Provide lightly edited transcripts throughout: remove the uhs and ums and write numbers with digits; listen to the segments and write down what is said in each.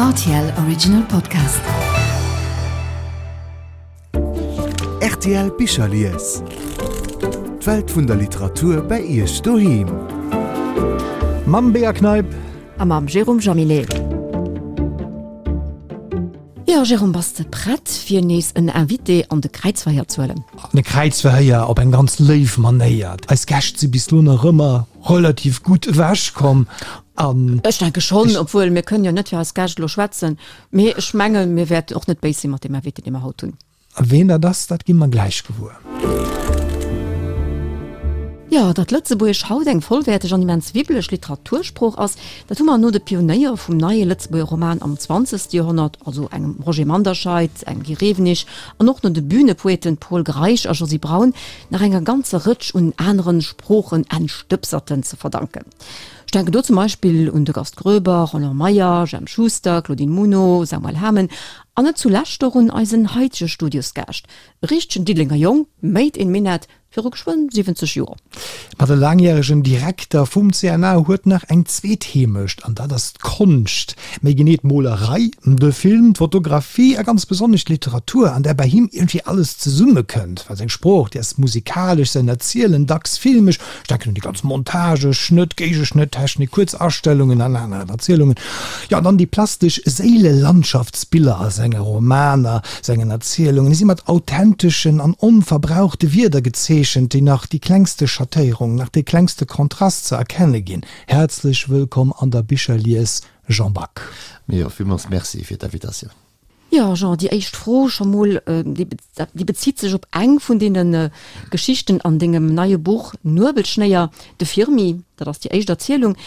Rtl Original Podcast. Rtl Bicherlies. D'Welt vun der Literatur bei Iech doheem. Mam Bea Kneip. A mam Jérôme Jaminet. Jo, Jérôme, bass de prett fir nees en Invité an de Kräizverhéier ze huelen? An de Kräizverhéier op eng ganz léif Manéier. Eis Gäscht si bis lo nach ëmmer relativ gutt ewech komm an. Ech denke schonn, obwuel mir kënnen jo net fir eis Gäscht elo schwätzen, mee ech mengen, mir wäerten och net béis si mat deem Invité, dee mer haut hunn. A ween dat ass, dat gi mer gläich gewuer. Jo, datt Lëtzebuergesch haut eng vollwäerteg an immens wibbeleg Literatursprooch ass, dat hu mer no de Pionéier vum neie Lëtzebuerger Roman am zwanzegste Joerhonnert, also engem Roger Manderscheid, engem Guy Rewenig an och no de Bühnepoeten Pol Greisch a Josy Braun, nach enger ganzer Rëtsch un aneren Sproochen-Entstëbserten ze verdanken. Ech denken do zum Beispill un de Gast Groeber, Roland Meyer, Jemp Schuster, Claudine Muno, Samuel Hamen An net zulescht och un eisen haitege Studiosgaascht, e richtegen Diddelenger Jong, made in Minett, viru geschwënn 70 Joer. Ma de laangjäregen Direkter vum CNA huet nach eng zweet Heemecht, an dat ass d'Konscht, méi genee d'Molerei, de Film, d'Fotografie a ganz besonnesch d'Literatur, an där bei him iergendwéi alles zesummekënnt. Well seng Sprooch, déi ass musikalesch, säin Erzielen dacks filmesch, Ech denken un déi ganz Montage, Schnëtt, Géigeschnëtt, Technik, kuerz Astellungen an aner Erzielungen. Jo, an dann déi plastesch Séilelandschaftsbiller a senge Romaner, sengen Erzielungen. Déi si mat authenteschen an onverbrauchte Wierder gezeechent, déi nach déi klengste Schattéierung, nach dee klengste Kontrast ze erkenne ginn. Häerzlech wëllkomm an der Bicherlies, Jean Back. Jo, villmools Merci fir d'Invitatioun. Jo, Jean, déi éischt Fro scho mol, déi bezitt sech op eng vun deene Geschichten an dengem neie Buch Nuebelschnéier, de Firmi, dat ass déi éischt Erzielung.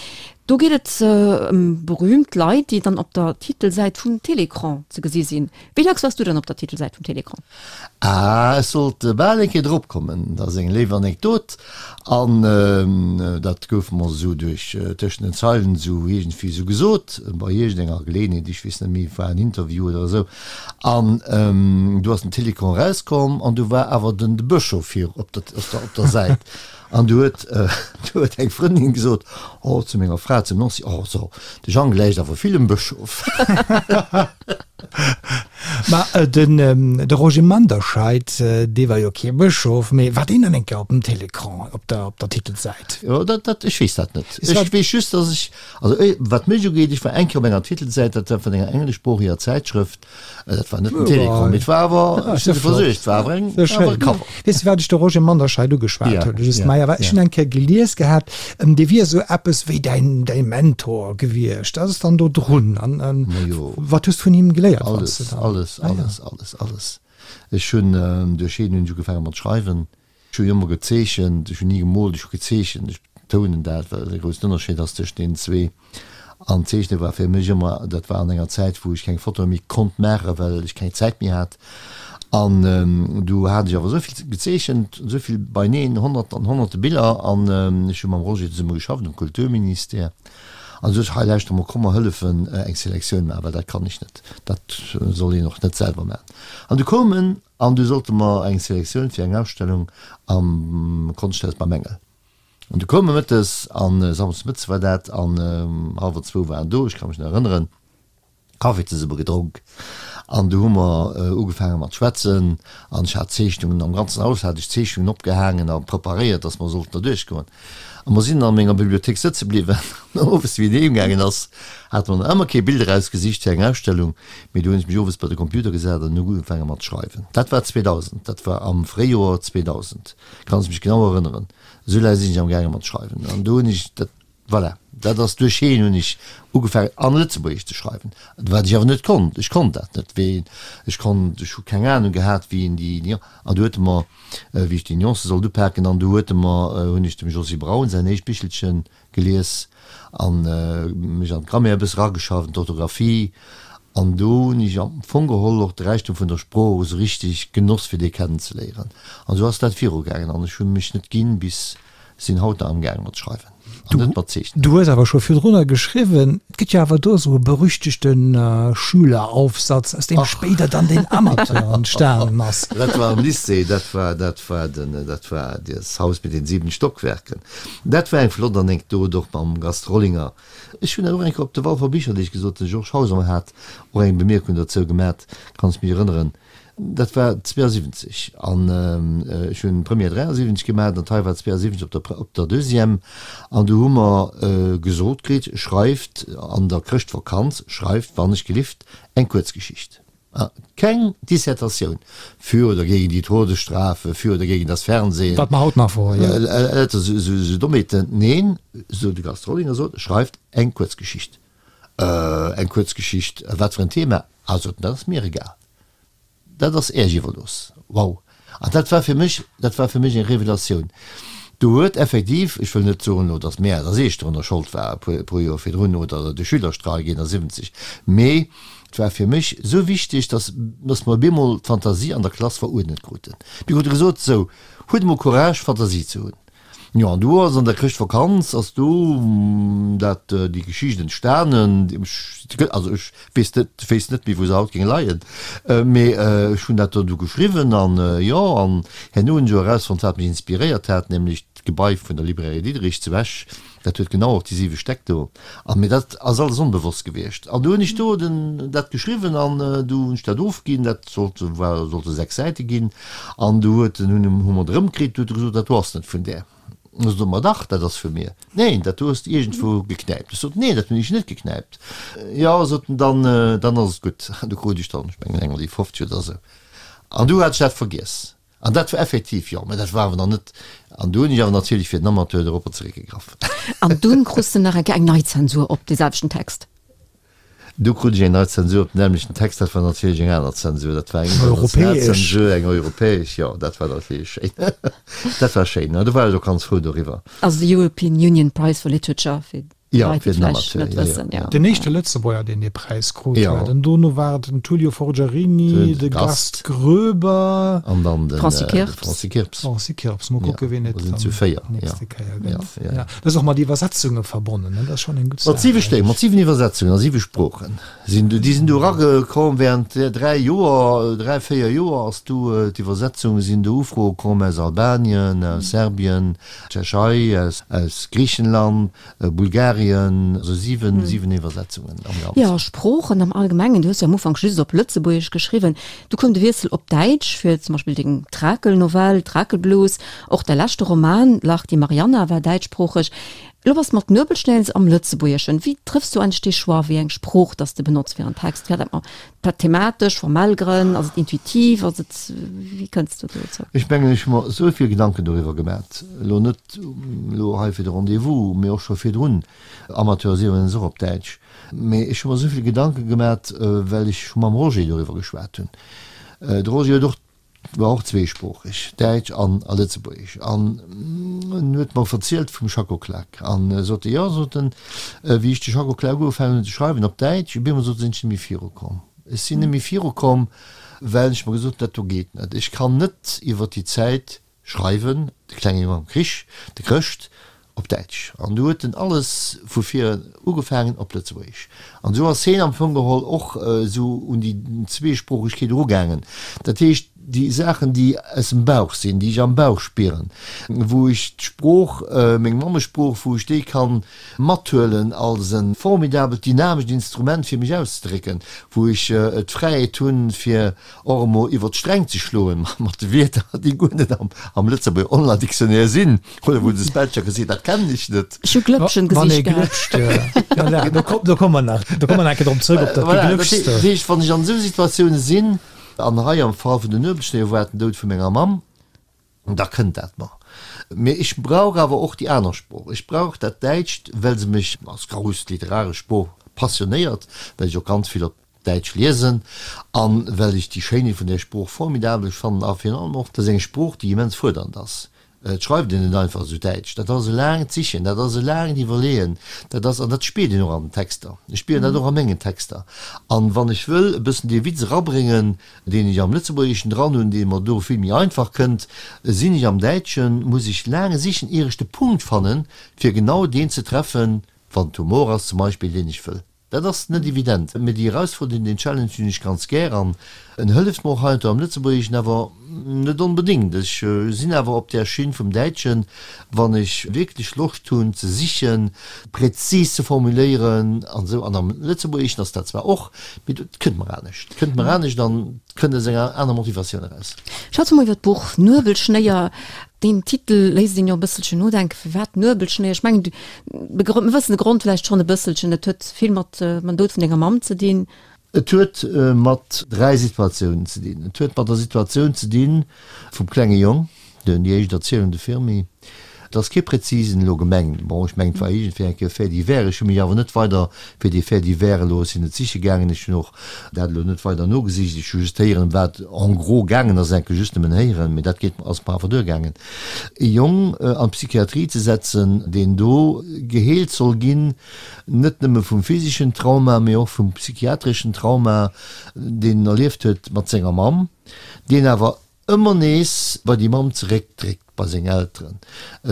Do geet et ëm berüümt Leit, déi dann op der Titelsäit vum Télécran ze gesi sinn. Wéi dacks waars du dann op der Titelsäit vum Télécran? Ah, ech sollt bal eng Kéier drop kommen. Dat ass eng léif Anekdot. An dat gouf mer esou duerch tëschent den Zeilen esou iergendwéi esou gesot, bei iergendenger Geleeënheet, ech weess net méi, war en Interview oder esou. An du ass den Télécran erauskomm an du war awer den de Bëschof vir op der, op der, op der Säit. An du huet, du huet eng Frëndin gesot, oh, zu menger Fra, zum Nancy, oh, so, de Jang gläicht awer vill dem Bëschof. Ma den de Roger Manderscheid, dee war jo kee Bëschof, mee war deen dann eng Kéier op dem Télécran op der op der Titelsäit? Jo, dat dat ech weess dat net. Ech weess just, datt ech, also wat mech ugeet, ech war eng Kéier op enger Titelsäit, dat war vun enger engleschsproocheger Zäitschrëft, dat war net den Télécran, mee et war awer, ech hunn se versuergt, et war awer eng, war awer e Cover. Weess de, wat ech de Roger Manderscheid ugeschwat hunn? Just Meyer, well ech hunn eng Kéier gelies gehat, dee wier esou eppes wéi däin, däi Mentor gewiescht. Dat ass dann do drun. An, an wat hues du vun him geléiert? Alles, alles, alles, alles, alles. Ech hunn, duerch hien hunn ech ugefaange mat schreiwen. Ech hunn ëmmer gezeechent, ech hunn ni gemoolt, ech hu gezeechent. Ech betounen dat, well et e groussen Ënnerscheed ass tëscht deenen zwee. An d'Zeechne war fir mech ëmmer, dat war an enger Zäit, wou ech keng Fotoe méi konnt maachen, well ech keng Zäit méi hat. An du hat ech awer esou vill gezeechent, esou vill beineen, Honnerten an Honnerte Biller. An ech hu mam Roger zesumme geschafft um Kulturministère. An du sot ech, hei lauschter mol, komm mer hëllefen eng Selektioun maachen, well dat kann ech net, dat soll een och net selwer maachen. An du koum en an du sollte mer eng Selektioun fir eng Ausstellung am Konschthaus beim Engel. An du koum e mëttes, an samschdes mëttes war dat, an hallwer zwou war en do, ech ka mech nach erënneren, Kaffi zesumme gedronk, an du hu mer ugefaange mat schwätzen, an ech hat Zeechnungen, am ganzen Haus hat ech Zeechnungen opgehaangen a preparéiert, datt mer sollten da duerchgoen. A mer sinn an menger Bibliothéik sëtze bliwwen, an owes, wéi en heem gaangen ass, hate mer nach ëmmer kee Bild erausgesicht fir eng Ausstellung, mee du hunn ech mech owes bei de Computer gesat an hu ugefaange mat schreiwen. Dat war 2000, dat war am Fréijoer 2000, kann ech mech genau erënneren. Esou laang sinn ech am gaange mat schreiwen an do hunn ech dat, voilà, dat ass duerch hien hunn ech ugefaangen an Lëtzebuergesch ze schreiwen, wat ech awer net konnt. Ech konnt dat net, wéi ech konnt, ech hu keng Ahnung gehat wéi een déi, an du huet e mer, wéi ech déi Nuancë sollt upaken, an du huet e mer, hunn ech dem Josy Braun säin éischt Bichelchen gelies an mech an d'Grammaire e bësse rageschafft, an d'Orthographie, an do hunn ech am Fong geholl och de Räichtum vun der Sprooch esou richteg genoss fir dee kennenzeléieren. An esou ass dat virugaangen an ech hu mech net ginn bis sinn haut nach amgaange mat schreiwen. An net mat Zeechnen. Du hues awer scho virdrunner geschriwwen, et gëtt jo awer do esou e berüchtegte Schüleraufsatz, aus deem spéider dann den Amateur entstanen ass. Dat war am Lycée, dat war, dat war den, dat war das Haus mit den sieben Stockwerken. Dat war eng flott Anekdot, och mam Gast Rollinger. Ech hunn dat och eng Kéier op de Walfer Bicherdeeg gesot, de Georges Hauser hat och eng Bemierkung dozou gemat, kann ech mech erënneren. Dat war 72 an ech hunn d'Première 73 gemaach an d'Hei war 72 op der op der Deuxième an du hu mer gesot kritt, schreift an der Chrëschtvakanz, schreift wann ech gelift eng Kuerzgeschicht. Keng Dissertatioun für oder gegen die Todesstrafe, für oder gegen das Fernsehen. Wat mer haut nach wor, jo. Lauter esou Dommheeten. Neen, sou de Gast Rollinger sot, schreift eng Kuerzgeschicht. Eng Kuerzgeschicht, wat fir en Thema? Ah, sot en, dat ass mir egal. Dat ass Äech iwwerlooss. Wow! An dat war fir mech, dat war fir mech eng Revelatioun. Do huet effektiv, ech wëll net soen elo, datt mär, datt ech dorunner Schold war, e puer, e puer Joer virdrun, oder de Schülerstreik 71, mee et war fir mech esou wichteg, datt, datt mer op eemol d'Fantasie an der Klass veruerdnet kruten. Mir krute gesot, Sou, huet emol Courage, Fantasie ze hunn. Jo, an du ass an der Chrëschtvakanz ass du dat déi Geschicht entstanen, also ech weess net, wéisst net méi wou se haut géing leien, mee ech hunn dat do du geschriwwen an jo, an herno hunn ech och erausfonnt wat mech inspiréiert hat, nämlech d'Gebai vun der Librairie Diderich zu Esch, dat huet genau och déi siwe Stäck do an, mee dat ass alles onbewosst gewiescht an du hunn ech do den dat geschriwwen an du hunn ech dat ofginn, dat sollte war sollte 6 Säite ginn. An du huet en, hunn hu mer et erëmkritt, du huet e gesot, dat do ass net vun där. Ech sot, ma dach, dat ass vu mir. Neen, dat do hues de iergendwou geknäipt. Ech sot, neen, dat hunn ech net geknäipt. Jo, sot en, dann, dann ass et gutt. An du krut ech dann, ech mengen, eng an déi 50 oder esou. An du hat ech dat vergiess. An dat war effektiv, jo, mä dat war awer nach net, an du hunn ech awer natierlech fir den Amateur doropper zeréckgegraff. An dunn krus de nach eng Kéier eng nei Zensur op dee selwechten Text. Du krut ech eng nei Zensur op den nämmlechten Text, dat war natierlech eng aner Zensur, dat war eng international Zensur, eng europäesch, jo, dat war natierlech schéin. Dat war schéin, do war ech och ganz frou doriwwer. Also de European Union Prize for Literature, fir déi Leit, déi et vläicht net wëssen, jo. Den éischte Lëtzebuerger, deen dee Präis krut huet. An dono war et den Tullio Forgiarini, de Gast Groeber. An dann de Franci Kirps. Franci Kirps. Franci Kirps, mol kucke wien et dann nächste Kéier gëtt. Dat ass och mat Iwwersetzunge verbonnen, ne? Dat ass schonn eng gutt Saach. Mat siwe Stéck, mat siwen Iwwersetzungen a siwe Sproochen sinn du, déi sinn du eragekomm während dräi Joer, dräi, véier Joer ass du d'Iwwersetzunge sinn do Ufroe komm aus Albanien, aus Serbien, Tschechei, aus, aus Griichenland, Bulgarien, also siwen, siwen Iwwersetzungen am Ganzen. Jo, Sproochen am Allgemengen, du hues jo am Ufank just op Lëtzebuergesch geschriwwen, du koum de Wiessel op Däitsch fir zum Beispill deng Trakelnovell Trakelblues, Och däi leschte Roman Lach die Marianna war däitschsproocheg. Elo bass de mat Nuebelschnäls am Lëtzebuergeschen. Wéi trëffs du eigentlech dee Choix, wéi eng Sprooch dass de benotz fir en Text? Fir dat mat thematesch, formell Grënn? Ass et intuitiv? Ass et, wéi kënns du dozou? Ech mengen, ech hu mer esou vill Gedanken doriwwer gemat, elo net elo hei fir de Rendez-vous, mee och scho virdrun. Amateur ass iwwregens och op Däitsch. Mee ech hu mer esou vill Gedanke gemat, well ech scho mam Roger doriwwer geschwat hunn. De Roger huet och war och zweesproocheg, Däitsch an a Lëtzebuergesch, an en huet mer verzielt vum Schacko Klak an sot e, jo, sot en, wéi ech de Schacko Klak ugefaangen hunn ze schreiwen op Däitsch, op eemol sot e, sinn ech net méi virukomm. Ech sinn net méi virukomm, well ech mer gesot hunn, dat do geet net, ech kann net iwwer déi Zäit schreiwen, de klenge Jong am Krich, de Chrëscht, op Däitsch. An du huet en alles vu vir ugefaangen op Lëtzebuergesch. An esou ass heen am Fong geholl och esou un déi Zweesproochegkeet erugaangen. Dat heescht, déi Saachen, déi aus dem Bauch sinn, déi ech am Bauch spieren, wou ech d'Sprooch, meng Mammesprooch, wou ech déi kann mathuelen als e formidabelt dynamescht Instrument, fir mech auszedrécken, wou ech d'Fräiheet hunn, fir och emol iwwer d'Sträng ze schloen mat de Wierder, déi guer net am Lëtzebuerger Online-Dictionnaire sinn. Oder wou de Spellchecker seet, dat kennen ech net. Ech hu Glëppchen Wann ee glëpscht, ja. Do komm, do komme mer nach, do komme mer nach eng Kéier drop zrëck, op dat Voilà, dat Geglëpschste. dat heescht, wann ech an esou Situatioune sinn, an hei am Fall vun den Nuebelschnéier war et den Doud vu menger Mamm, da kënnt dat mer. Mee ech brauch awer och déi aner Sprooch. Ech brauch dat Däitscht, well se mech als grouss literaresch Sprooch passionéiert, well ech och ganz vill op Däitsch liesen an well ech déi Schéinheet vun där Sprooch formidabel fannen a virun allem och, dat ass eng Sprooch, déi immens fuerdernd ass. Et schreift een net einfach esou Däitsch. Dat ass e laangt Sichen, dat ass e laangt Iwwerleeën, dat ass, an dat spiert een och an den Texter. Ech spieren dat och a mengen Texter. An wann ech wëll e bëssen dee Witz erabréngen, deen ech am Lëtzebuergeschen dran hunn, dee mer do vill méi einfach kënnt, sinn ech am Däitschen, muss ech laang sichen, ier ech de Punkt fannen, fir genau deen ze treffen, wann et Humor ass zum Beispill, deen ech wëll. Dat ass net evident, mee déi Erausforderung, deen Challenge hunn ech ganz gär an en hëlleft mer och heiansdo am Lëtzebuergeschen, awer net onbedéngt. Ech sinn awer op där Schinn vum Däitschen, wann ech wierklech Loscht hunn ze sichen, präzis ze formuléieren an esou. An am Lëtzebuergeschen ass dat zwar och, mee et kënnt mer anescht, et kënnt mer anescht an et kënnt aus enger aner Motivatioun eraus. Schwätze mer iwwer d'Buch Nuebelschnéier. Deen Titel léisst een jo e bësselchen nodenken. Firwat Nuebelschnéier? Ech mengen, Mir wëssen de Grond vläicht schonn e bësselchen. Et huet vill mat mam Doud vun denger Mamm ze dinn. Et huet mat 3 Situatiounen ze dinn. Et huet mat der Situatioun ze dinn vum klenge Jong, den, déi éischt Erzielung, de Firmi. Et ass kee prezisen elo gemengt. Bon, ech mengen, et war iergendwéi eng Kéier Fait divers. Ech hu mech awer net weider fir dee Fait divers elo, ech sinn net siche gaangen, ech hunn och dat elo net weider nogesicht. Ech hu just héieren, ëm wat en gros gaangen ass, enke just nëmmen héieren, mee dat geet, ass mer awer duergaangen. E Jong an d'Psychiatrie ze setzen, deen do geheelt soll ginn, net nëmme vum physeschen Trauma, mee och vum psychiatreschen Trauma, deen en erlieft huet mat senger Mamm, deen awer ëmmer nees bei déi Mamm zeréckdréckt, bei seng Elteren,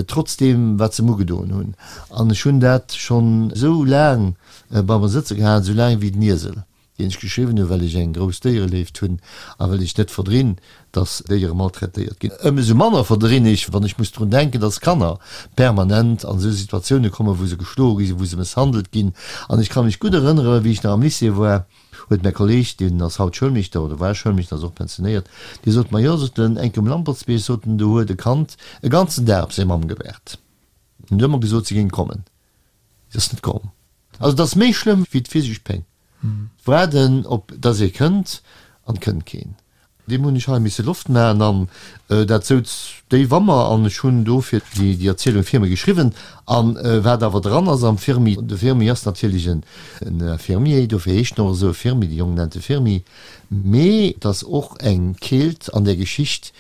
trotz deem, wat se em ugedoen hunn. An ech hunn dat schonn esou laang bei mer sëtze gehat, esou laang wéi den Iesel. deen ech geschriwwen hunn, well ech eng grouss Déiereléift hunn a well ech net verdrinn, dass Déiere maltraitéiert ginn. Ëmsou manner verdrinn ech, wann ech muss drun denken, dass Kanner permanent an esou Situatioune kommen, wou se geschloe gi sinn, wou se mësshandelt ginn. An ech ka mech gutt erënnere, wéi ech nach am Lycée war, huet mäi Kolleeg, deen ass haut Schoulmeeschter oder war Schoulmeeschter, ass och pensionéiert, dee sot mer, jo, sot en, eng Kéier um Lampertsbierg, sot en, do huet e Kand e ganzen Dag op seng Mamm gewaart. En huet ëmmer gesot, si géing kommen. Si ass net komm. Also et ass méi schlëmm wéi d'physesch Péng. D'Waarden op dass ee kënnt an et kënnt keen. Deem hunn ech hei misse Loft maachen an dat souz déif a mer an ech hunn dofir déi Erzielung Firmi geschriwwen. An wat awer dran ass am Firmi, de Firmi ass natierlech en Infirmier, dofir heescht en och esou Firmi, de Jong nennt e Firmi, mee et ass och eng Keelt an där Geschicht,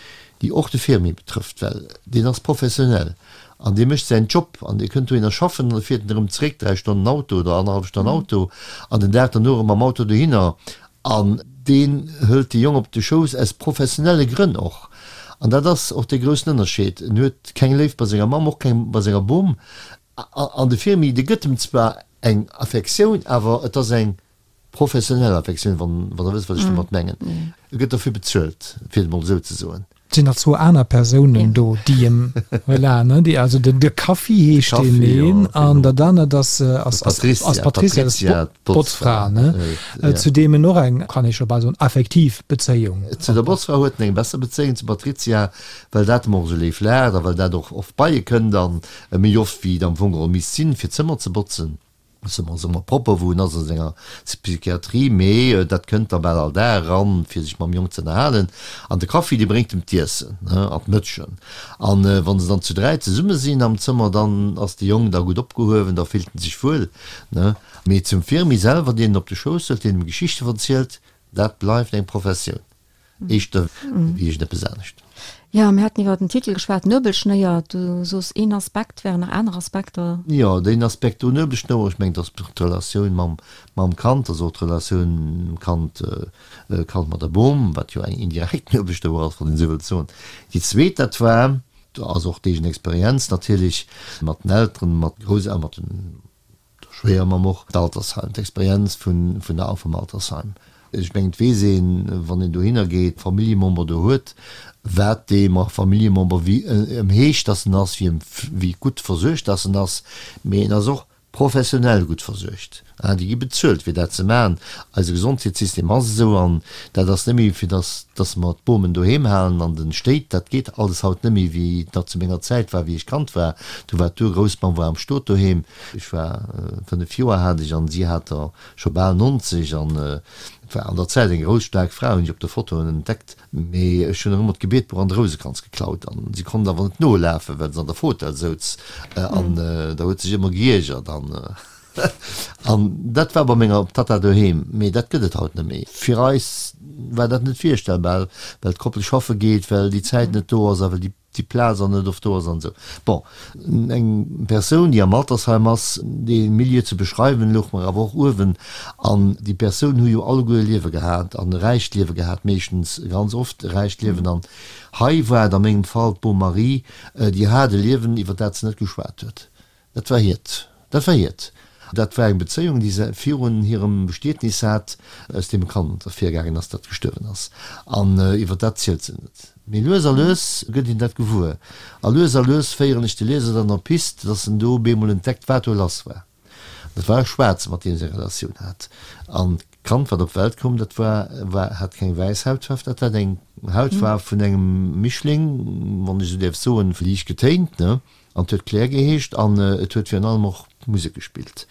déi och de Firmi betrëfft, well deen ass professionell An dee mécht säin Job an dee kënnt dohinner schaffen an da fiert en erëm zeréck, 3 Stonnen Auto oder annerhallef Stonn Auto an den Dag derno erëm mam Auto dohinner. An deen hëlt de Jong op de Schouss aus professionelle Grënn och. An dat ass och dee groussen Ënnerscheed. En huet keng Léift bei senger Mamm, och keng bei senger Bom. An de Firmi, dee gëtt em zwar eng Affektioun, awer et ass eng Professionell Affektioun, wann Der wësst, wat ech domat mengen. E gëtt derfir bezuelt, fir et emol esou ze soen. Et sinn nach zwou aner Persounen do, déi em, voilà, ne, déi, also den, de Kaffi heescht deen een an dat anert ass, ass, ass d'Patricia, dat ass d'Botzfra, ne, zu deem en och eng, kann ee scho bal soen, affektiv Bezéiung. Zu der Botzfra huet en eng besser Bezéiung, zum Patricia, well dat em och esou léif laacht a well dat och oft bei e kënnt an méi oft wéi et am Fong geholl misst sinn, fir d'Zëmmer ze botzen. Ass ëmmer propper wou en ass a senger Psychiatrie, mee dat kënnt da bal all Dag eran fir sech mam Jong ze ënnerhalen. An de Kaffi dee bréngt em d'Iessen an d'Mëtschen. An wann se dann zu 3 zesumme sinn am Zëmmer, dann ass de Jong da gutt opgehuewen, da fillt en sech wuel. Mee zum Firmi selwer, deen en op de Schouss hëlt, deen em Geschichte verzielt, dat bleift eng Professioun. Éischter wéi iergendeppes anescht. Jo, mir haten iwwer den Titel geschwat, Nuebelschnéier. Du soos een Aspekt, wären nach aner Aspekter? Jo, deen Aspekt do, Nuebelschnouer, ech mengen, et ass d'Relatioun mam, mam Kand, also och d'Relatioun Kand, Kand mat der Bom, wat jo eng indirekt Nuebelschnouer ass, wann een esou wëllt soen. Déi zweet, dat war, do ass och d'eegen Experienz natierlech mat den Elteren, mat Grousselteren, mat den, Der Schwéiermamm och d'Altersheim, d'Experienz vun vun der vum Altersheim. Ech mengen, et weess een, wann een dohinner geet, Familljemember do huet, wat dee Familljemember wéi ëm heescht, dass en ass, wéi ëm wéi gutt versuergt dass en ass, mee en ass och professionell gutt versuergt. Déi gi bezuelt fir dat ze maachen. Eise Gesondheetssystem ass esou an dat ass net méi fir dass dass mer d'Bomen doheem halen an de Stéit. Dat geet alles haut net méi wéi et nach zu menger Zäit war, wéi ech Kand war. Do war d'Urgroussmamm war am Stot doheem. Ech war 5 Joer hat ech an si hat der scho bal 90 an et war an der Zäit eng grouss staark Fra, hunn ech op de Fotoen entdeckt. Mee ech hunn der ëmmer d'Gebietbuch an de Rousekranz geklaut an si konnt awer net nolafen, well se an der Fotell souz an da huet sech ëmmer geiergert an an dat war bei menger Tatta doheem. Mee dat gëtt et haut net méi. Fir eis. war dat net virstellbar, well d'Koppel schaffe geet, well déi Zäit net do ass a well déi déi Plaz an net oft do ass an esou. Bon, eng Persoun, déi am Altersheim ass, dee Milieu ze beschreiwen, louch mer awer och uewen. An déi Persounen hu jo alleguer e Liewe gehat an e räicht Liewe gehat, meeschtens, ganz oft e räicht Liewen. An hei war et a mengem Fall d'Bom Marie, déi hat e Liewen, iwwer dat se net geschwat huet. Dat war hiert. Dat war hiert. Dat war eng Bezéiung, déi se virun hirem Bestietnis hat, aus deem e Kand ervirgaangen ass, dat gestuerwen ass. An iwwer dat zielt se net. Mee lues a lues gëtt een dat gewuer. A lues a lues féieren ech de Lieser dann op d'Pist, dass en do bemol entdeckt, wat do lass war. Dat war e Schwaarze, mat deem se eng Relatioun hat. An d'Kand, wat op d'Welt koum, dat war, war, hat keng wäiss Hautfaarf, dat hat eng Hautfaarf vun engem Mischling, wann ech esou däerf soen, liicht getéint, ne? An et huet Claire geheescht an et huet virun allem och Musek gespillt.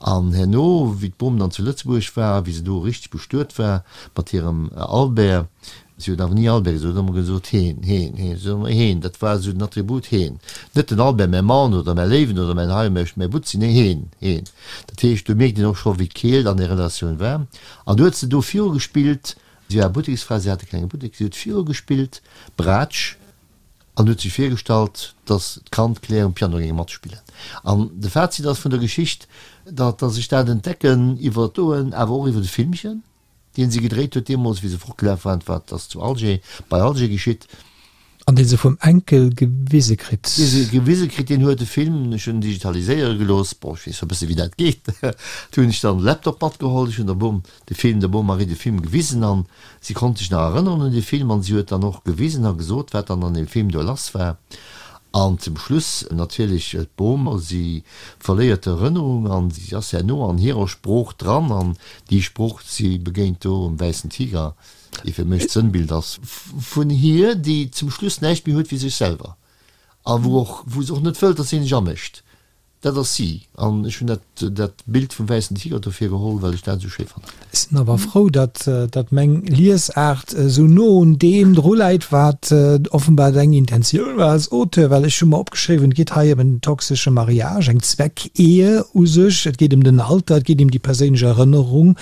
An herno, wéi d'Bom dann zu Lëtzebuerg war, wéi se do richteg bestuet war mat hirem Albert, si huet awer ni Albert gesot, huet ëmmer gesot heen, heen, heen, si huet ëmmer heen, dat war esou den Attribut heen. Net den Albert, mäi Mann oder mäi Léiwen oder mäin hei, mäi Butzi, nee heen, heen. Dat heescht, do mierkt een och scho wéi d'Keelt an där Relatioun war. An du huet se do virugespillt, si war Butteksfra, si hat e klenge Buttek, si huet virugespillt, Braatsch, An huet sech virgestallt, datt d'Kand Claire um Piano géing matspillen. An de Fazit ass vun der Geschicht, datt ech dat entdecken iwwer d'Oen, awer och iwwer de Filmchen, deen si gedréit huet deemools, wéi se fortgelaf waren, wat ass zu Alger, bei Alger geschitt. An dee se vum Enkel gewise kritt. Dee se gewise kritt, deen huet de Film, ech hunn en digitaliséiere gelooss, bon, ech weess e bësse wéi dat geet, du hunn ech dann de Laptop matgeholl, ech hunn der Bom de Film, der Bom Marie de Film gewisen an Si konnt sech nach erënneren un dee Film an si huet dann och gewisen a gesot, wat dann an deem Film do lass war. An zum Schluss natierlech d'Bom, si verléiert d'Erënnerung an si ass herno an hirer Sprooch dran an déi Sprooch, si begéint do um wäissen Tiger, dee fir mech d'Sënnbild ass vun hir, déi zum Schluss näischt méi huet wéi sech selwer a wou och, wou se och net wëllt, datt een sech amécht. Dat ass si. An ech hunn dat, dat Bild vum wäissen Tiger dofir geholl, well ech dat esou schéi fannen. Ech sinn awer frou, datt, datt meng Liesaart esou no un deem dru läit, wat offenbar deng Intentioun war als Auteur, well ech hu mer opgeschriwwen, et geet hei ëm en toxesche Mariage, eng Zweckehe u sech, et geet ëm den Alter, et geet ëm déi perséinlech Erënnerung,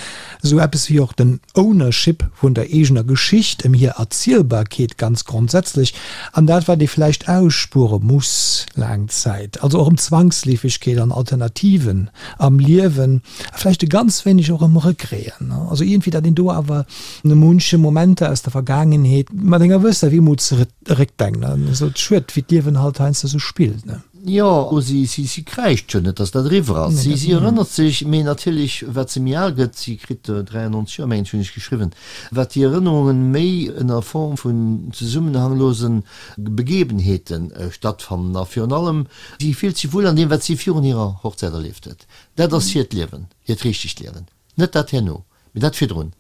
Esou eppes wéi och den Ownership vun der eegener Geschicht, ëm hir Erzielbarkeet ganz grondsätzlech, an dat wat ee vläicht ausspuere muss laang Zäit, also och ëm Zwangsleefegkeet an Alternativen am Liewen a vläicht e ganz wéineg och ëm Regreten. Also iergendwéi, datt een do awer munche Momenter aus der Vergaangenheet mat enger gewësser Wehmut zeréckdenkt an esou schued, wéi d'Liewen halt heiansdo esou spillt. Jo, si, si, si kräischt jo net, dass dat eriwwer ass. Si, si erënnert sech, mee natierlech, wat se méi al gëtt, si kritt 93 Joer, mengen ech, hunn ech geschriwwen, wat déi Erënnerungen méi ënner Form vun zesummenhanglosen Begebenheete stattfannen. A virun allem, si fillt sech wuel an deem, wat si virun hirer Hochzäit erlieft huet. Dat ass hiert Liewen, hiert richtegt Liewen. Net dat herno, mee dat virdrun.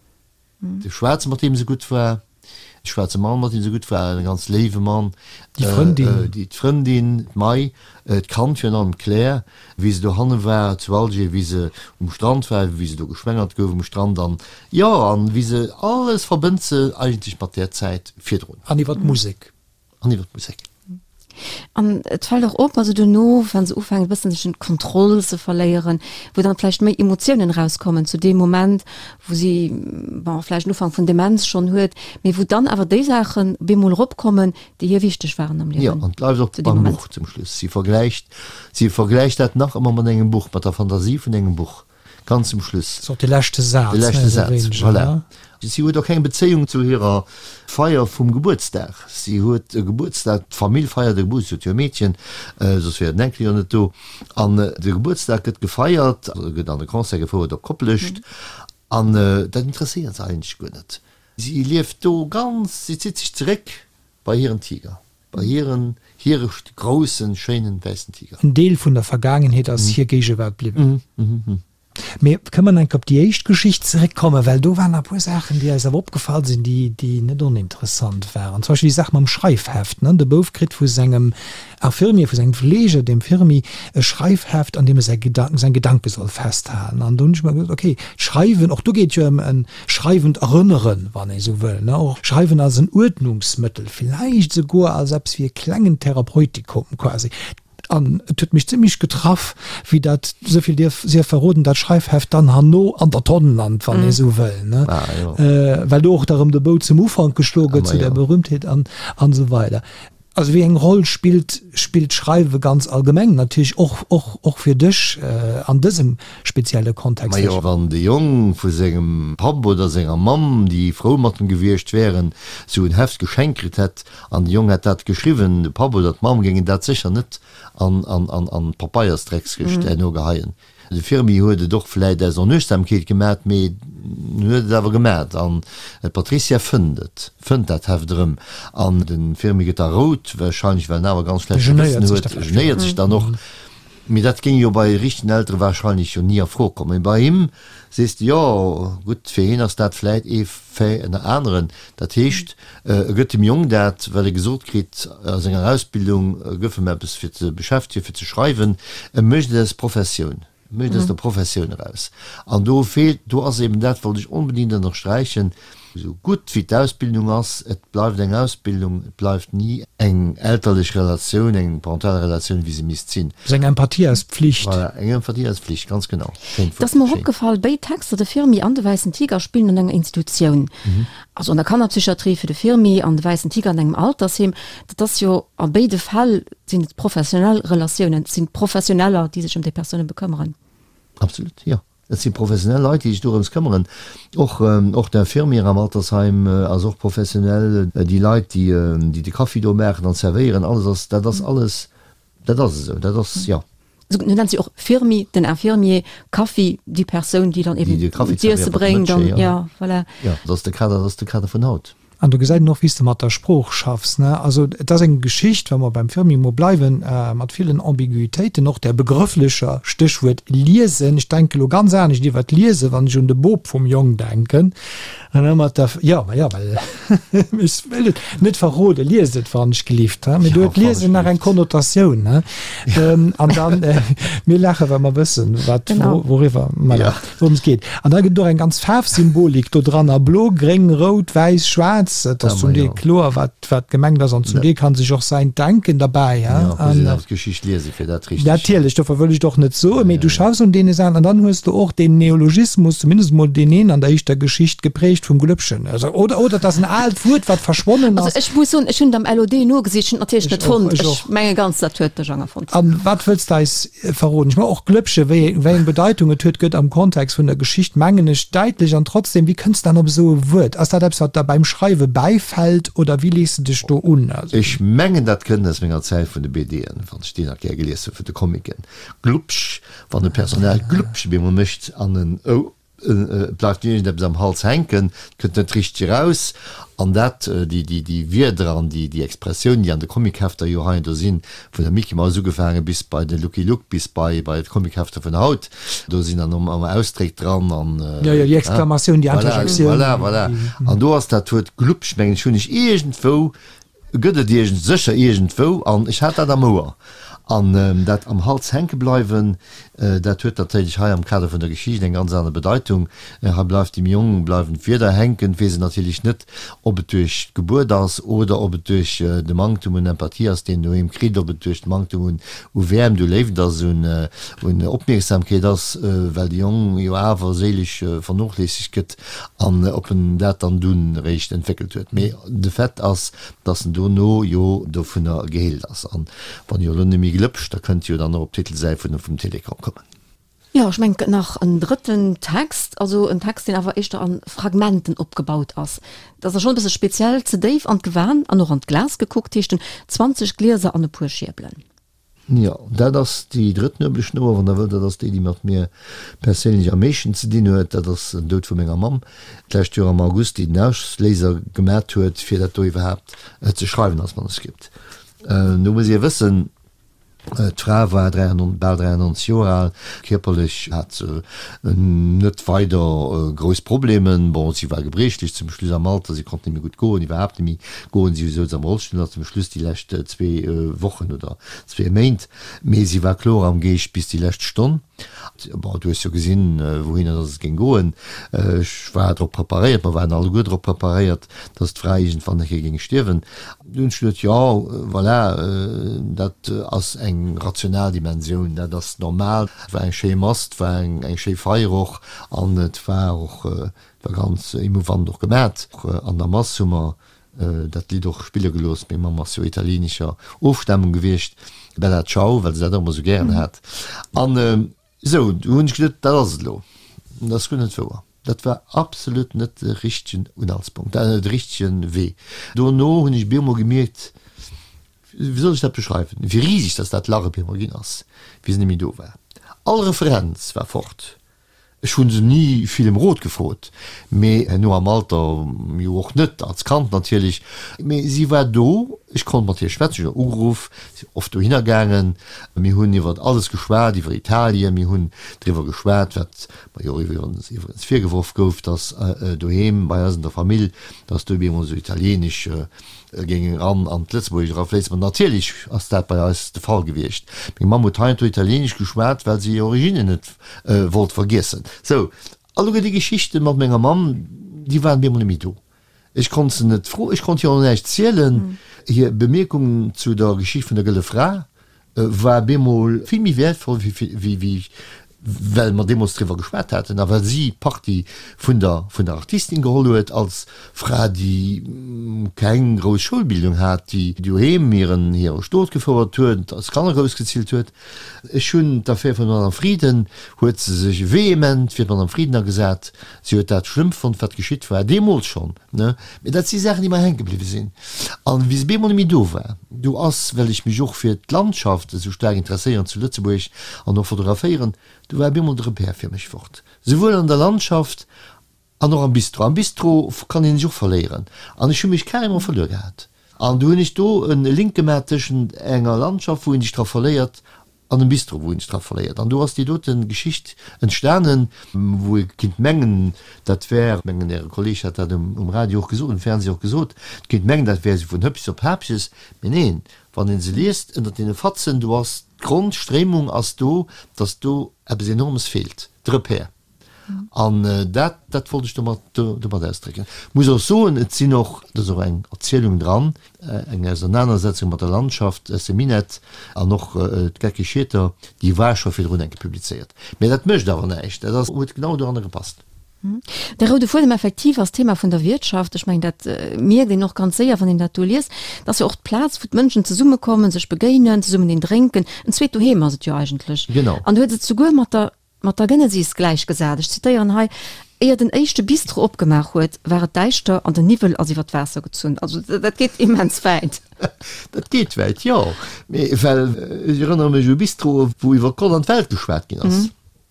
De Schwaarze mat deem se gutt war, de schwaarze Mann mat deem se gutt war, e ganz léiwe Mann, Déi Frëndin. Déi d'Frëndin, d'May, d'Kand virun allem, d'Claire, wéi se dohanne war zu Alger, wéi se um Strand war, wéi se do geschwängert gouf um Strand an, jo, an wéi se, alles verbënnt se eigentlech mat där Zäit virdrun. An iwwer d'Musek. An iwwer d'Musek. An et fält och op, also duerno, wa se ufänkt e bëssen sech un d'Kontroll ze verléieren, wou dann vläicht méi Emotiounen erauskommen zu deem Moment, wou si, bon, vläicht en Ufank vun Demenz schonn huet, mee wou dann awer déi Saachen bemol eropkommen, déi hir wichteg waren am Liewen. Jo, an et bleift och beim Buch zum Schluss. Si vergläicht, si vergläicht dat nach ëmmer mat engem Buch, mat der Fantasie vun engem Buch. Ganz zum Schluss. Ass och de leschte Saz. De leschte Saz, voilà. Si huet och keng Bezéiung zu hirer Feier vum Gebuertsdag. Si huet e Gebuertsdag, d'Famill feiert e Gebuertsdag, si huet jo e Meedchen, soss wär den Enkel jo net do. An de Gebuertsdag gëtt gefeiert, gëtt an e Concert gefouert op Koplescht. An dat interesséiert se eigentlech guer net. Si lieft do ganz, si zitt sech zeréck bei hiren Tiger. Bei hiren, hire groussen, schéinen, wäissen Tiger. En Deel vun der Vergaangenheet ass hir Géigewaart bliwwen. Mee kënne mer nach eng Kéier op déi éischt Geschicht zeréckkommen, well do waren nach e puer Saachen, déi eis awer opgefall sinn, déi, déi net oninteressant waren. Zum Beispill déi Saach mam Schreifheft, ne? De Bouf kritt vu sengem Infirmier, vu sengem Fleeger, dem Firmi, e Schreifheft, an deem e säi Gedanken, seng Gedanke soll festhalen. An do hunn ech mer gesot, okay, d'Schreiwen, och do geet jo ëm en Schreiwend erënneren, wann ee sou wëll, ne, och Schreiwen als en Uerdnungsmëttel, villäicht esouguer als eppes wéi e klengen Therapeutikum quasi. An et huet mech zimmlech getraff, wéi dat, esou vill dierf sief verroden, dat Schreifheft dann herno an der Tonn lant, wann ee sou wëll, ne? Well do och da rëm de Bou zum Ufank geschloe gëtt, zu der Berühmtheet an, an esou weider. Also wéi eng Roll spillt spillt d'Schreiwe ganz allgemeng natierlech och och och fir dech an dësem spezielle Kontext? Majo, wann de Jong vu sengem Papp oder senger Mamm, déi frou mat em gewiescht wären, sou en Heft geschenkt kritt hätt an de Jong hätt dat geschriwwen, de Papp oder d'Mamm géingen dat sécher net an an an an d'Papeiersdreckskëscht herno geheien. De Firmi huet et och vläit aus Onuechtsamkeet gemat, mee en huet et awer gemat. An d'Patricia fënnt et, fënnt dat Heft erëm. An de Firmi gëtt da rout, warscheinlech well en awer e ganz schlecht Gewëssen huet, genéiert sech dann och. Mee dat géing jo bei richtegen Eltere warscheinlech jo ni a Fro kommen. Mee bei him sees de, jo gutt, fir hien ass dat vläit ee Fait ënner aneren. Dat heescht, e gëtt dem Jong dat, well e gesot kritt a senger Ausbildung, gëff em eppes fir ze beschäftegen, fir ze schreiwen. E mécht et aus Professioun, e mécht et aus der Professioun eraus. An do feelt, do ass eben dat, wollt ech onbedéngt ënnersträichen, esou gutt wéi d'Ausbildung ass, et bleift eng Ausbildung, et bleift ni eng elterlech Relatioun, eng parental Relatioun, wéi se misst sinn. Ass eng Empathie aus Pflicht. Voilà, eng Empathie aus Pflicht, ganz genau. Schéint Wuert. Et ass mer och opgefall, béid Texter, de Firmi an de Wäissen Tiger, spillen an enger Institutioun. Also an der Kannerpsychiatrie fir de Firmi an de Wäissen Tiger an engem Altersheem. Dat ass jo, a béide Fäll sinn et professionell Relatiounen, et sinn Professioneller, déi sech ëm déi Persoune bekëmmeren. Absolut, jo. Et si professionell Leit, déi sech dorëms këmmeren. Och, och d'Infirmière am Altersheim ass och professionell. Déi Leit, déi, déi de Kaffi do maachen an zerwéieren, alles ass, dat ass alles, dat ass esou, dat ass, jo. Esou nennt si och Firmi, den Infirmier, Kaffi, déi Persoun, déi dann eben d'Iesse bréngt an, jo, voilà. Jo, dat ass de Kader, dat ass de Kader vun haut. An do gesäit een och, wéi s de mat der Sprooch schaffs, ne? Also, et ass eng Geschicht, wa mer beim Firmi mol bleiwen, mat villen Ambiguitéiten, och där begrëfflecher, Stéchwuert Liesen. Ech denke lo ganz anescht iwwer d'Liesen, wann ech un de Bop vum Jong denken. An da mat der, jo, ma jo, well ech wëll et net verroden, liest et wann ech gelift, he? Mee do huet d'Liesen nach eng Konnotatioun, he? An dann, mir laachen, well mer wëssen, wat, wouriwwer, voilà. Wourëms et geet. An da gëtt et och eng ganz Faarfsymbolik do dran, a blo, gréng, rout, wäiss, schwaarz. Et ass zum Deel kloer, wat, wat gemengt ass, an zum Deel kann sech och säin Denken derbäi, he. Jo, muss een awer d'Geschicht liesen, fir dat richteg. Natierlech, dofir wëll ech et och net soen, mee du schaffs un deene Saachen. An dann hues de och deen Neologismus, zumindest emol deen een an der éischter Geschicht, geprägt vum Glëppchen. Also, oder, oder et ass en aalt Wuert, wat verschwonnen ass. Also ech muss soen, ech hunn et am LOD nogesicht, ech hunn et natierlech net fonnt. Ech menge ganz, dat huet de Jang erfonnt. A wat wëlls de eis verroden. Ech mengen och Glëppche, wéi wéi eng Bedeitung et huet, gëtt am Kontext vun der Geschicht, mengen ech, däitlech. An trotzdem, wéi kënns de dann op esou e Wuert? Ass dat eppes, wat der beim Schreiwe bäifält oder wéi lees de dech do un? Also. Ech mengen, dat kënnt aus menger Zäit vun de BDen, wann ech déi nach gär gelies hunn, vun de Comicen. Glupsch, wann e Personnage Glupsch op eemol mécht an en ou. Et bleift iergendeppes am Hals hänken, et kënnt net richteg eraus. An dat, déi Wierder an déi Expressiounen, déi an de Comichefter jo hei an do sinn, vun der Micky Maus ugefaange bis bei de Lucky Luke, bis bei d'Comichefter vun haut, do sinn dann ëmmer Ausdréck dran an. Jo, jo, déi Exklamatioun, déi Interjektioun. Voilà, voilà. An do ass dat Wuert Glubsch, mengen ech, hunn ech iergendwou Gëtt et iergend, sécher iergendwou, an ech hat dat am Ouer. An dat am Hals hänke bleiwen, dat huet natierlech hei am Kader vun der Geschicht eng ganz aner Bedeitung. Hei bleift dem Jong, bleiwen d'Wierder hänken, weess en natierlech net, ob et duerch d'Gebuert ass oder ob et duerch de Manktum un Empathie ass, deen en doheem kritt, ob et duerch de Manktum un u Wäermt, u Léift ass, un un Opmierksamkeet ass, well de Jong jo awer séilesch vernochléissegt gëtt. An ob en dat dann dunn eréischt entwéckelt huet. Mee de Fait ass, dass en dono jo dovunner geheelt ass. An wann jo elo net méi glëpscht, da kënnt jo dann och op d'Titelsäit vun vum Télécom kommen. Jo, ech mengen, et gëtt nach en drëtten Text, also en Text, deen awer éischter a Fragmenten opgebaut ass. Dat ass da schonn e bësse speziell, Ze déif an d'Gewan an och an d'Glas gekuckt heescht en, 20 Glieser an e puer Schierbelen. Jo, dat ass déi drëtt Nuebelschnouer, wann Der wëllt. Dat ass déi, déi mat mir perséinlech am meeschten ze dinn huet. Dat ass den Doud vu menger Mamm d'lescht Joer am August, déi den Ausléiser gemat huet, fir dat do iwwerhaapt ze schreiwen als Manuskript. Do muss ee wëssen, d'Fra war bal 93 Joer al, kierperlech hat se net weider grouss Problemen. Bon, si war gebriechlech zum Schluss am Alter, si konnt net méi gutt goen, iwwerhaapt net méi goen, si souz am Rollstull nach zum Schluss déi lescht zwee Wochen oder zwee Méint, mee si war kloer am Geescht bis déi lescht Stonn. Bon, du hues jo gesinn, wouhinner dass et géing goen. Ech war drop preparéiert, mer waren alleguer drop preparéiert, dass d'Fra iergendwann eng Kéier géing stierwen. Dunn hunn ech geduet, jo, voilà, dat ass eng. eng rational Dimensioun, dat ass normal. Et war eng schéi Mass, et war eng schéi Feier och an et war och, et war ganz emouvant och gemat. An der Mass hu mer dat Lidd och spille gelooss. Meng Mamm ass jo italienescher Ofstamung gewiescht, Bella Ciao, well se dat och ëmmer esou gären hat. An esou, du hunn ech geduet, dat ass et elo. Dat ass guer net wouer. Dat war absolut net de richtegen Unhaltspunkt, de richtege Wee. Dono hunn ech bemol gemierkt, wéi soll ech dat beschreiwen, wéi riseg dass dat Lach op eemol ginn ass, wéi se net méi do war. All Referenz war fort. Ech hu se ni vill ëm Rot gefrot, mee herno am Alter jo och net, als Kand natierlech. Mee si war do, ech konnt mat hir schwätzen, ech hunn ugeruff, si oft dohinner gaangen, mir hunn iwwer alles geschwat, iwwer Italien, mir hunn driwwer geschwat, wat mer jo iwwerens iwwerens virgeworf gouf, datt doheem bei eis an der Famill, datt do op eemol esou Italieenesch géing eran an d'Lëtzebuergescht erafléissen. Ma natierlech ass dat bei eis de Fall gewiescht. Meng Mamm huet heiansdo Italieenesch geschwat, well se hir Originnen net wollt vergiessen. Sou, alleguer déi Geschichte mat menger Mamm, déi waren op eemol net méi do. Ech konnt se net froen, ech konnt hir och näischt zielen. Hir Bemierkungen zu der Geschicht vun der Gëlle Fra war bemol vill méi wäertvoll wéi well mer deemools driwwer geschwat haten a well si Partie vun der vun der Artistin geholl huet als Fra, déi keng grouss Schoulbildung hat, déi doheem hiren hire Stot gefouert huet, als Kanner groussgezillt huet. Ech hunn d'Affär vun der Madame Frieden, huet se sech vehement fir d'Madame Frieden agesat. Si huet dat schlëmm fonnt, wat geschitt war, deemools schonn, ne? Mee dat si Saachen, déi mer hänke bliwwe sinn. An wéi se bemol net méi do war, do ass, well ech mech och fir d'Landschaft esou staark interesséieren zu Lëtzebuerg an och fotograféieren, do war bemol de Repère fir mech fort. Souwuel an der Landschaft an och am Bistro. Am Bistro kann ee sech och verléieren. An ech hu mech carrément verluer gehat. An du hunn ech do e Link gemaach tëschent enger Landschaft, wou een sech dra verléiert, an dem Bistro, wou een sech dra verléiert. An do ass déi dote Geschicht entstanen, wou ee kinnt mengen, dat wär, mengen Äre Kolleg hat dat um Radio och gesot, um Fernseh och gesot, et kinnt mengen, dat wär esou vun Hëppches op Haapches. Mee neen, wann ee se liest, ënnert deene Fatzen, do ass d'Grondstréimung ass do, datt do eppes Enormes feelt, de Repère. An dat, dat wollt ech domat, domat ausdrécken. Muss och soen, et sinn och, et ass och eng Erzielung dran, eng Ausernanersetzung mat der Landschaft aus dem Minett an och d'Geckeg Schieter, déi war scho virdrun eng Kéier publizéiert. Mä dat mécht awer näischt, dat ass, huet genau doranner gepasst. De roude Fuedem effektiv ass d'Thema vun der Wiertschaft. Ech mengen, dat mierkt een och ganz séier, wann een dat do liest. Dat ass jo och d'Plaz, wou d'Mënschen zesummekommen, sech begéinen, zesummen een drénken. En zweet Doheem ass et jo eigentlech. Genau. An du hues et souguer mat der Mat der Genesis gläichgesat. Ech zitéieren hei, Éier den éischte Bistro opgemaach huet, war et däischter an den Niwwel ass iwwer d'Waasser gezunn. Also dat geet immens wäit. Dat geet wäit, jo. Mee well ech erënnere mech u Bistroe wou iwwer Gott an d'Welt geschwat ginn ass.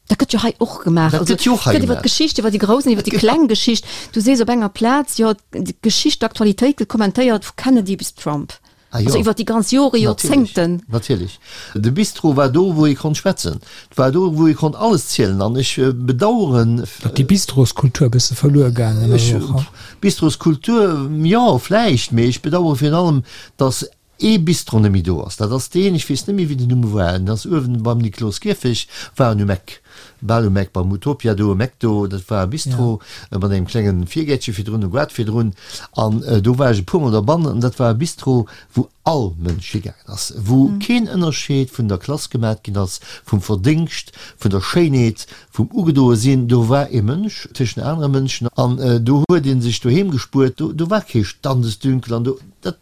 Dat gëtt jo hei och gemaach. Dat gëtt jo och hei gemaach. Et gëtt iwwer d'Geschicht, iwwer déi grouss an iwwer déi kleng Geschicht. Du sees op enger Plaz, jo, d'Geschicht, d'Aktualitéit gëtt kommentéiert vu Kennedy bis Trump. Ah jo. Also iwwer déi ganz Jore, Joerzéngten. Natierlech. De Bistro war do, wou ee konnt schwätzen. Et war do, wou ee konnt alles zielen. An ech bedaueren. Datt déi Bistroskultur e bësse verluer gaangen ass och. Bistroskultur, jo, vläicht. Mee ech bedauere virun allem, datt ee Bistro net méi do ass. Dat ass deen, ech weess net méi, wéi den Numm war, en ass uewen beim Nikloskierfech, war en um Eck. Bal um Eck beim Utopia do um Eck do, dat war e Bistro mat engem klengen Virgäertche virdrun, e Goart virdrun an do war ech e puermol derbannen an dat war e Bistro wou all Mënsch higaangen ass, wou keen Ënnerscheed vun der Klass gemat ginn ass, vum Verdéngscht, vun der Schéinheet, vum ugedoe sinn. Do war ee Mënsch tëschent anere Mënschen an do huet ee sech doheem gespuert, do war kee Standesdünkel an do. Dat,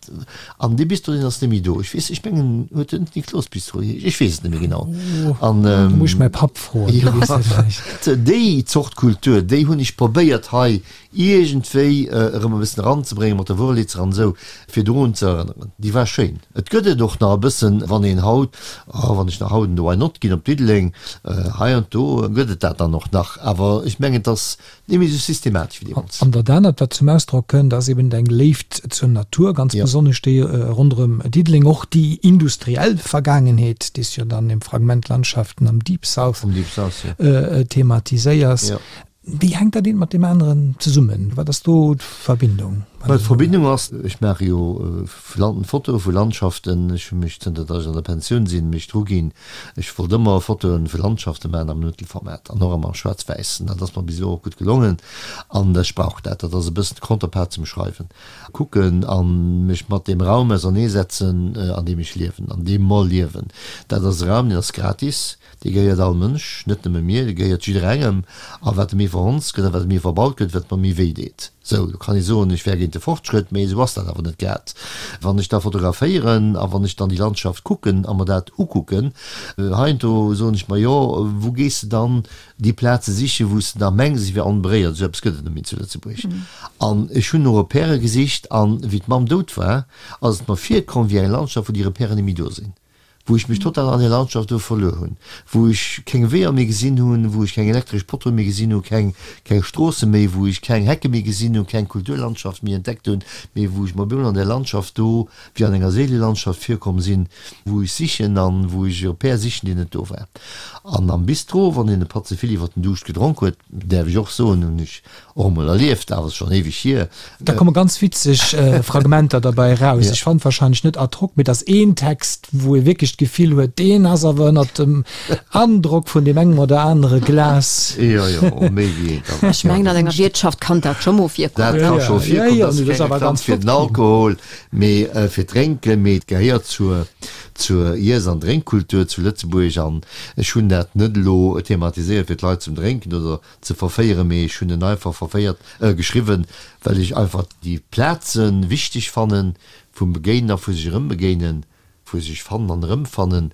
an dee Bistro, deen ass net méi do. Ech weess, ech mengen, huet en Niklos-Bistro geheescht? Ech weess et net méi genau. An, Do muss ech mäi Papp froen, dee weess dat vläicht. Déi Zort Kultur, déi hunn ech probéiert hei iergendwéi erëm e bëssen eranzebréngen, mat der Wurlitzer an esou, fir dorun ze erënneren. Déi war schéin. Et gëtt et och nach e bëssen, wann een haut, oh, wann ech nach haut an de Why Not ginn op Diddeleng, hei an do gëtt et dat dann och nach. Awer ech mengen, et ass Net méi esou systematesch wéi deemools. An dat anert, wat zum Ausdrock kënnt, ass eben eng Léift zur Natur, ganz besonnesch déi ronderëm Diddeleng, och déi industriell Vergaangenheet, déi s du jo dann im Fragment Landschaften am Deep South thematiséiers. Wéi hänkt dat eent mat deem aneren zesummen? Wat ass do d'Verbindung? Well d'Verbindung ass, ech maache jo Fotoe vu Landschaften, ech hu mech, zënter datt ech an der Pensioun sinn, mech dru ginn, ech wollt ëmmer Fotoe vu Landschafte maachen am Mëttelformat an och ëmmer schwaarz-wäiss. An dat ass mer bis elo och gutt gelongen an ech brauch dat. Dat ass e bëssen d'Counterpart zum Schreiwen. Kucken a mech mat deem Raum auserneesetzen, an deem ech liewen, an deem mer liewen. Dat ass e Raum, deen ass gratis. Dee gehéiert all Mënsch, net nëmme mir, dee gehéiert jidderengem. A wat e méi verhonzt gëtt a wat e méi verbaut gëtt, wat mer méi wéi deet. Sou, do kann ee soen, ech wär géint de Fortschrëtt, mee esou ass dat awer net grad. Wann ech da fotograféieren a wann ech dann déi Landschaft kucken a mer dat ukucken, heiansdo soen ech mer, jo, wou gees de dann déi Plaze sichen, wou s de da mengs, se wier onberéiert. Esou eppes gëtt et net méi zu Lëtzebuerg. An ech hunn no Repèrë gesicht an wéi d'Mamm dout war, ass et mer virkomm wéi eng Landschaft, wou déi Repèren net méi do sinn. wou ech mech total an där Landschaft do verluer hunn, wou ech keng Weeër méi gesinn hunn, wou ech keng elektresch Poteaue méi gesinn hunn, keng, keng Stroosse méi, wou ech keng Hecke méi gesinn hunn, keng Kulturlandschaft méi entdeckt hunn, mee wou ech mer op eemol an där Landschaft do wéi an enger Seelelandschaft virkomm sinn, wou ech sichen an wou ech e Repère sichen, deen net do war. An am Bistro, wann een e Patt ze vill iwwer den Duuscht gedronk huet, däerf ech och soen, hunn ech Och emol erlieft, awer ass schon éiweg hier. Da komme ganz witzeg Fragmenter derbäi eraus. Ech fand wahrscheinlech net ad hoc, mee et ass een Text, wou ee wierklech d'Gefill huet, deen ass awer ënnert dem Androck vun deem engem oder anere Glas. Jo, jo, och méi wéi eent. Awer Ech mengen, an enger Wiertschaft kann dat scho mol virkommen. Dat ka scho virkommen. Dat ass keng Reklamm fir den Alkohol, mee fir d'Drénken, mee et gehéiert zur, zur Iess an Drénkkultur zu Lëtzebuerg. An ech hunn dat net elo thematiséiert, fir d'Leit zum Drénken oder ze verféieren, mee ech hunn en einfach verféiert, geschriwwen, well ech einfach déi Plaze wichteg fannen, vum Begéinen a vu sech erëmbegéinen, vu sech fannen an erëmfannen,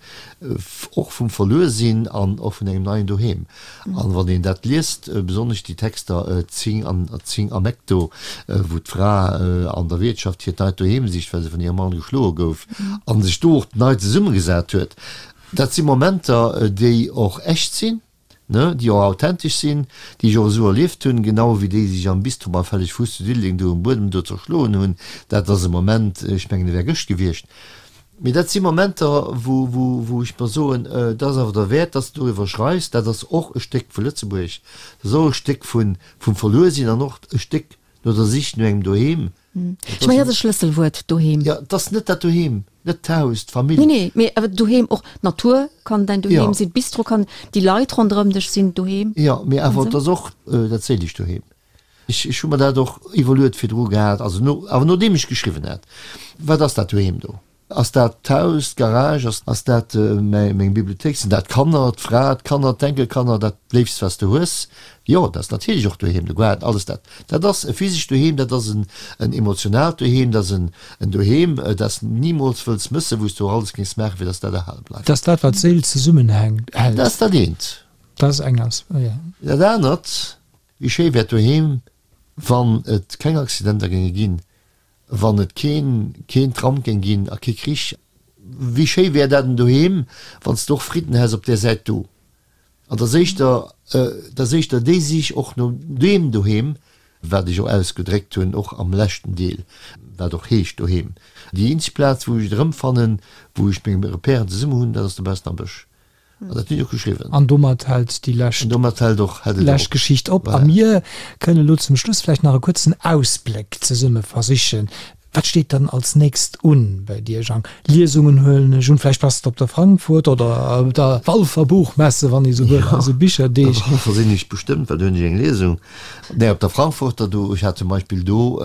och vum Verluersinn an och vun engem neien Doheem. An wann een dat liest, besonnesch déi Texter 10 an 10 am Eck do, wou d'Fra an der Wiertschaft hiert neit Doheem sicht, well se vun hirem Mann geschloe gouf, a sech do och nei zesummegesat huet, dat si Momenter, déi och echt sinn, ne, déi och authentesch sinn, déi ech och esou erlieft hunn, genau ewéi déi, déi sech am Bistro beim Felleg Fuuss zu Diddeleng do um Buedem do zerschloen hunn. Dat ass e Moment, ech mengen, e wär gëscht gewiescht. Mee dat si Momenter, wou, wou, wou ech mer soen, dat ass awer derwäert, dass de doriwwer schreifs. Dat ass och e Stéck vu Lëtzebuerg, dat ass och e Stéck vun, vum Verluersinn an och e Stéck no der Sich no engem Doheem. Ech mengen, dat ass e Schlësselwuert, Doheem. Jo, et ass net dat Doheem, net d'Haus, d'Famill. Nee, nee, mee awer Doheem, och d'Natur kann däin Doheem sinn, d'Bistro kann, déi Leit ronderëm dech sinn Doheem. Jo, mee awer et ass och dat séilecht Doheem. Ech, ech hu mer dat och iwwerluet virdru gehat, also no, awer nodeem ech geschriwwen hat, Wat ass dat Doheem do? Ass dat d'Haus, d'Garage, ass dat meng Bibliothéik, sinn dat d'Kanner, d'Fra, d'Kanner, d'Enkelkanner, dat Léifst wat s de hues? Jo, dat ass natierlech och doheem, de Gaart, alles dat. Dat ass e physescht Doheem, dat ass en emotionaalt Doheem, dat ass en Doheem, dat s de nimools wëlls mëssen, wou s de och alles géings maachen, fir datt dat erhale bleift. Dat ass dat, wat d'Séil zesummenhält. Dat ass dat eent. Dat ass eng As, jo. Dat anert, wéi schéi wär d'Doheem, wann et keng Accidenter géinge ginn, Wann et keen keen Tram géing ginn a kee Krich, wéi schéi wär dat en doheem, wann s de och Fridden häss op där Säit do. An 't ass éischter, 't ass éischter déi Sich och no deem Doheem, wat ech och ausgedréckt hunn, och am leschten Deel, wat och heescht Doheem. Déi eenzeg Plaz, wou ech et erëmfannen, wou ech meng Repèren zesummen hunn, dat ass dobaussen am Bësch. An dat hunn ech och geschriwwen. An domat hält déi lescht, An domat hält och, hält et lescht Geschicht op. A mir kënnen elo zum Schluss vläicht nach e kuerzen Ausbléck zesumme versichen. Wat steet dann als nächst un bei dir, Jang? Liesungen huelen ech un, vläicht bass de op der Frankfurt oder op der Walfer Buchmesse, wann ee sou wëll, also Bicherdeeg. Op der Walfer sinn ech bestëmmt, well do hunn ech eng Liesung. Nee, op der Frankfurter do, ech hat zum Beispill do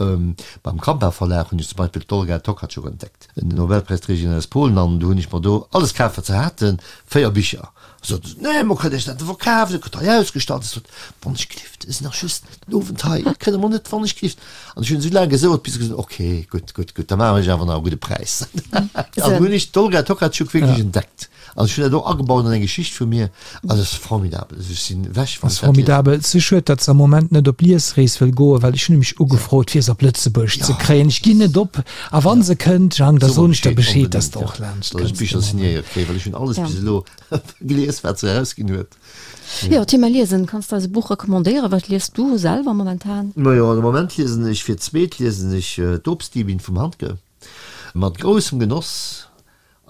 beim Kampa Verlag hunn ech zum Beispill d'Olga Tokarczuk entdeckt. Den Nobelpräisträgerin aus Polen, an du hunn ech mer do alles kaf wat se haten, 4 Bicher. Sot se, nee, mer kënnen iech dat net verkafen, dat gëtt hei ausgestallt. Ech sot, wann ech gelift, ech sinn nach just den Owend hei, kënne mer net, wann ech gelift. An ech hunn esou laang gesouert, bis se gesot hunn, okay, gutt, gutt, gutt, da maachen ech awer nach e gudde Präis. An du hunn ech d'Olga Tokarczuk wierklech entdeckt. An ech hunn dat och agebaut an eng Geschicht vu mir. Also et ass formidabel. Also ech sinn ewech, wann ech dat liesen. Formidabel. Et ass schued, datt se am Moment net op Liesrees wëll goen, well ech hunn nämlech ugefrot, fir se op Lëtzebuerg ze kréien. Ech ginn net op. A wa se kënnt, Jang, da soen ech der Bescheed, datt s de och laanscht kënns. Datt ech d'Bicher signéiert kréien, well ech hunn alles bis elo gelies, wat se erausginn huet. Jo, Thema Liesen. Kanns de eis e Buch recommandéieren? Wat liest du selwer momentan? Majo, de Moment liesen ech fir d'zweet liesen ech D'Obstdiebin vum Handke. Mat groussem Genoss.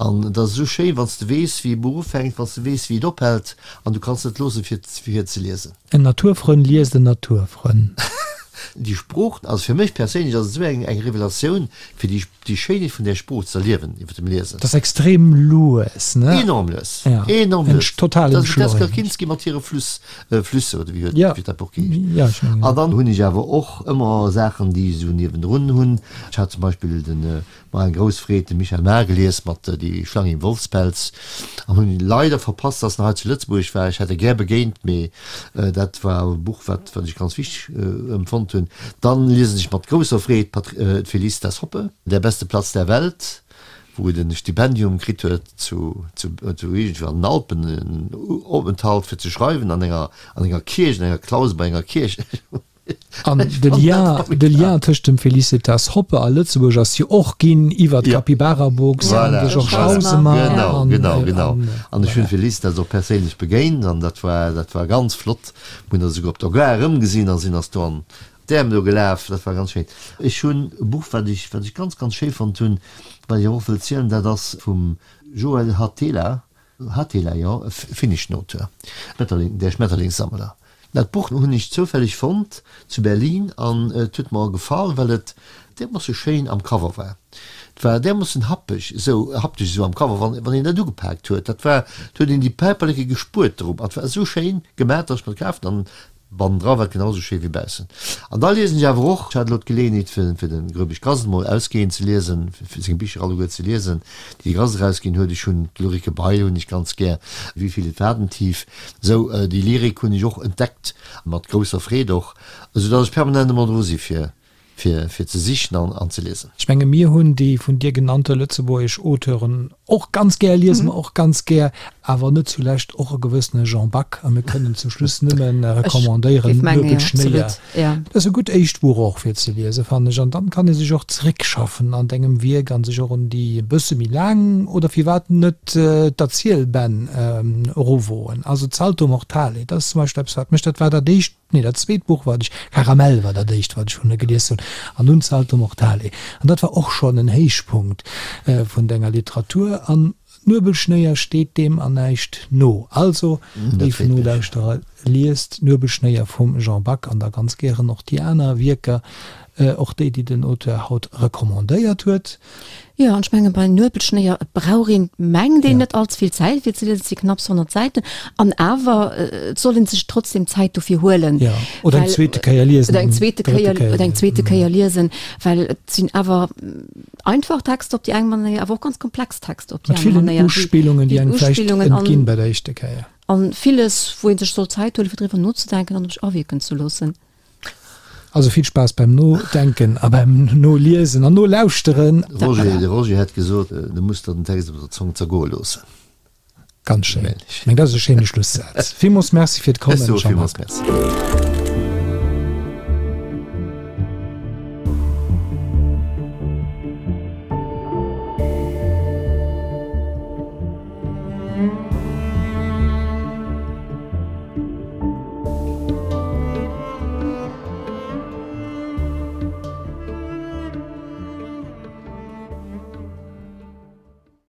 An et ass esou schéin, wann s de weess, wéi e Buch ufänkt, wann s de weess, wéi et ophält, an du kanns net loossen, fir fir ze liesen. En Naturfrënn liest en Naturfrënn. Déi Sprooch, also fir mech perséinlech ass et esou eng eng Revelatioun, fir déi déi Schéinheet vun där Sprooch ze erliewen iwwer dem Liesen. Dat ass extrem lues, ne? Enorm lues, enorm lues. Total entschleunegt. Dat ass d'Jessica Kinski mat hire Fluss, Flüsse oder wéi huet wéi dat Buch geheescht. Ja, ech mengen. An dann hunn ech awer och ëmmer Saachen, déi ech esou niewendrun hunn. Ech hat zum Beispill den War eng grouss Freed, de Michael Maar gelies mat Die Schlange im Wolfspelz an hunn leider verpasst, dass en hei zu Lëtzebuerg war. Ech hätt e gär begéint, mee dat war e Buch, wat wat ech ganz wichteg empfonnt hunn. Dann liesen ech mat grousser Freed d'Felicitas Hoppe, Der beste Platz der Welt, wou et en Stipendium kritt huet zu zu zu iergendwou an den Alpen, en Openthalt fir ze schreiwen an enger an enger Kierch, an enger Klause bei enger Kierch. An de Lien, de Lien tëscht dem Felicitas Hoppe a Lëtzebuerg ass jo och ginn iwwer d'Capybara Books an de Georges Hausemer. Genau, genau, genau. An ech hunn d'Felicitas och perséinlech begéint an dat war, dat war ganz flott. Mir hunn eis esouguer op der Gare erëmgesinn a sinn eis do an d'Äerm do gelaf. Dat war ganz schéin. Ech hunn e Buch, wat ech, wat ech ganz, ganz schéi fonnt hunn, wat ech awer och wëll zielen, dat ass vum Joel Hatela, Hatela, jo, e finneschen Auteur, Schmetterling, Der Schmetterlingssammler. Dat Buch hunn ech zoufälleg fonnt zu Berlin an et huet mer gefall, well et därmoosse schéin am Cover war. Et war därmoossen happeg esou, haptesch esou am Cover, wann wann een dat ugepaakt huet, dat war, et huet een déi Päiperleke gespuert drop an et war esou schéin gemaach, datt ech mer et kaf hunn an Bannendra war et genau esou schéi wéi baussen. An da liesen ech awer och, ech hat elo d'Geleeënheet fir fir de Gröbisch Grass emol ausgehend ze liesen, fir seng Bicher alleguer ze liesen, déi de Grass erausginn huet. Ech hunn d'Ulrike Bail hunn ech ganz gär, Wie viel et Wadentief. Esou, déi Lyrik hunn ech och entdeckt, mat grousser Freed och, esou datt ech permanent ëmmer dru si fir fir fir ze sichen an an ze liesen. Ech menge mir hunn déi vun dir genannte lëtzebuergesch Auteuren och ganz gär, liese mer och ganz gär, awer net zulescht och e gewëssene Jean Back. A mir kënnen zum Schluss nëmme recommandéieren, Nuebel Schnéier. Dat ass e gutt éischt Buch och fir ze liesen, fannen ech. An dann kann ee sech och zeréckschaffen an dengem Wierk a sech och un déi e bësse méi laang oder firwat net d'Erzielbänn eruwoen. Also d'Salto Mortale, dat ass zum Beispill eppes wat mech, dat war dat éischt, Nee, dat zweet Buch wat ech, Karamell war dat éischt wat ech vun der gelies hunn, an dunn Salto Mortale. An dat war och schonn en Héichpunkt vun denger Literatur. An Nuebelschnéier steet deem an näischt no. Also, léif Nolauschterer, liest Nuebelschnéier vum Jean Back an da ganz gären och déi aner Wierker, och déi, déi den Auteur haut recommandéiert huet. Jo, an ech menge bei Nuebelschnéier, et brauch een, mengt een, net allze vill Zäit fir ze liesen, et si knapps 100 Säiten, an awer et soll een sech trotzdem Zäit dofir huelen. Jo, oder eng zweete Kéier liesen. Oder eng zweete Kéier, oder eng zweete Kéier liesen, well et sinn awer einfach Texter op déi eng Manéier, awer och ganz komplex Texter op déi aner Manéier. Mat villen Uspillungen, déi engem vläicht entginn bei der éischter Kéier. An villes, wou ee sech soll Zäit huelen, fir driwwer nozedenken an op sech awierken ze loossen. Also vill Spaass beim Nodenken a beim Noliesen an Nolauschteren. Roger, de Roger hätt gesot, du muss der den Text op der Zong zergoe loossen. Ganz schéin. Ech mengen, dat ass e schéine Schlussaz. Villmools Merci fir d'Kommen, Jean-Marc. Ech soe villmools Merci.